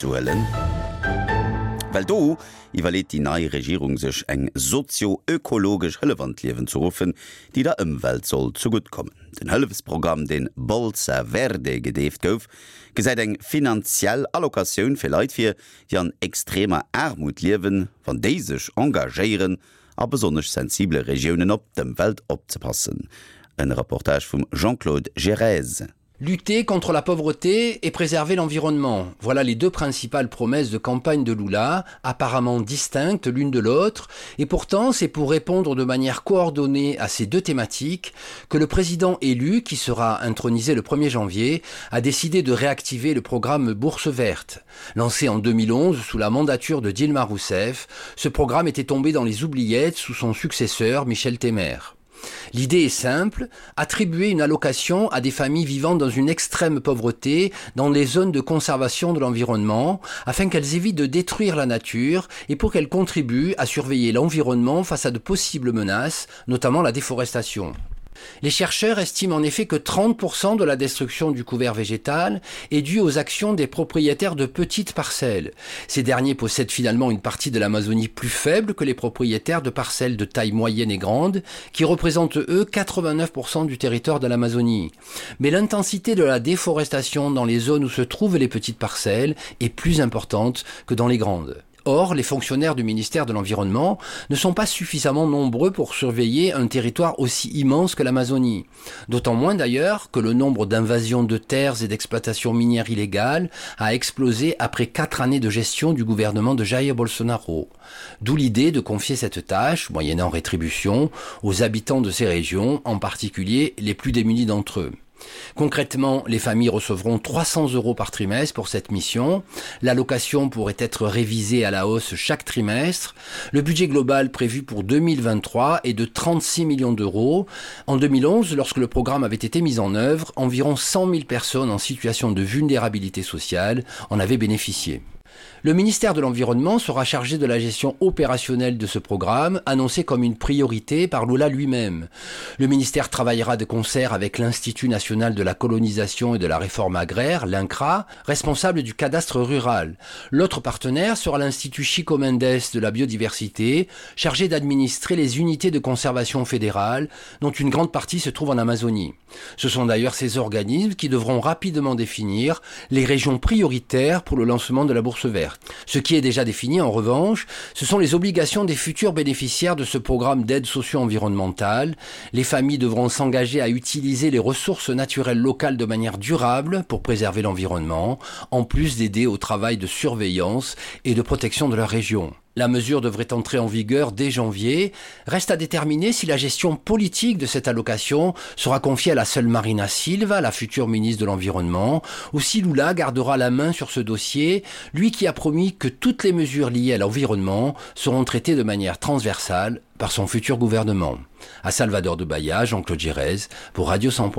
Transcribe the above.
Ze huelen, well do iwwerleet déi nei Regierung sech eng sozio-ökologesch Hëllef an d'Liewen ze ruffen, déi der Ëmwelt soll zegutt kommen. Den Hëllefsprogramm, deen Bolsa Verde gedeeft gouf, gesäit eng finanziell Allocatioun fir Leit vir, déi an extremer Aarmut liewen, wann déi sech engagéieren, a besonnesch sensibele Regiounen op d'Ëmwelt opzepassen. En Reportage vum Jean-Claude Girez. Lutter contre la pauvreté et préserver l'environnement. Voilà les deux principales promesses de campagne de Lula, apparemment distinctes l'une de l'autre, et pourtant c'est pour répondre de manière coordonnée à ces deux thématiques que le président élu, qui sera intronisé le 1er janvier, a décidé de réactiver le programme Bourse verte. Lancé en 2011 sous la mandature de Dilma Rousseff, ce programme était tombé dans les oubliettes sous son successeur Michel Temer. L'idée est simple, attribuer une allocation à des familles vivant dans une extrême pauvreté dans les zones de conservation de l'environnement afin qu'elles évitent de détruire la nature et pour qu'elles contribuent à surveiller l'environnement face à de possibles menaces, notamment la déforestation. Les chercheurs estiment en effet que 30% de la destruction du couvert végétal est due aux actions des propriétaires de petites parcelles. Ces derniers possèdent finalement une partie de l'Amazonie plus faible que les propriétaires de parcelles de taille moyenne et grande, qui représentent eux 89% du territoire de l'Amazonie. Mais l'intensité de la déforestation dans les zones où se trouvent les petites parcelles est plus importante que dans les grandes. Or, les fonctionnaires du ministère de l'Environnement ne sont pas suffisamment nombreux pour surveiller un territoire aussi immense que l'Amazonie. D'autant moins d'ailleurs que le nombre d'invasions de terres et d'exploitations minières illégales a explosé après quatre années de gestion du gouvernement de Jair Bolsonaro. D'où l'idée de confier cette tâche, moyennant rétribution, aux habitants de ces régions, en particulier les plus démunis d'entre eux. Concrètement, les familles recevront 300 euros par trimestre pour cette mission. L'allocation pourrait être révisée à la hausse chaque trimestre. Le budget global prévu pour 2023 est de 36 millions d'euros. En 2011, lorsque le programme avait été mis en œuvre, environ 100 000 personnes en situation de vulnérabilité sociale en avaient bénéficié. Le ministère de l'Environnement sera chargé de la gestion opérationnelle de ce programme, annoncé comme une priorité par Lula lui-même. Le ministère travaillera de concert avec l'Institut national de la colonisation et de la réforme agraire, l'INCRA, responsable du cadastre rural. L'autre partenaire sera l'Institut Chico Mendes de la biodiversité, chargé d'administrer les unités de conservation fédérale, dont une grande partie se trouve en Amazonie. Ce sont d'ailleurs ces organismes qui devront rapidement définir les régions prioritaires pour le lancement de la bourse verte. Ce qui est déjà défini en revanche, ce sont les obligations des futurs bénéficiaires de ce programme d'aide socio-environnementale. Les familles devront s'engager à utiliser les ressources naturelles locales de manière durable pour préserver l'environnement, en plus d'aider au travail de surveillance et de protection de leur région. La mesure devrait entrer en vigueur dès janvier. Reste à déterminer si la gestion politique de cette allocation sera confiée à la seule Marina Silva, la future ministre de l'Environnement, ou si Lula gardera la main sur ce dossier, lui qui a promis que toutes les mesures liées à l'environnement seront traitées de manière transversale par son futur gouvernement. À Salvador de Bahia, Jean-Claude Gérez pour Radio 100.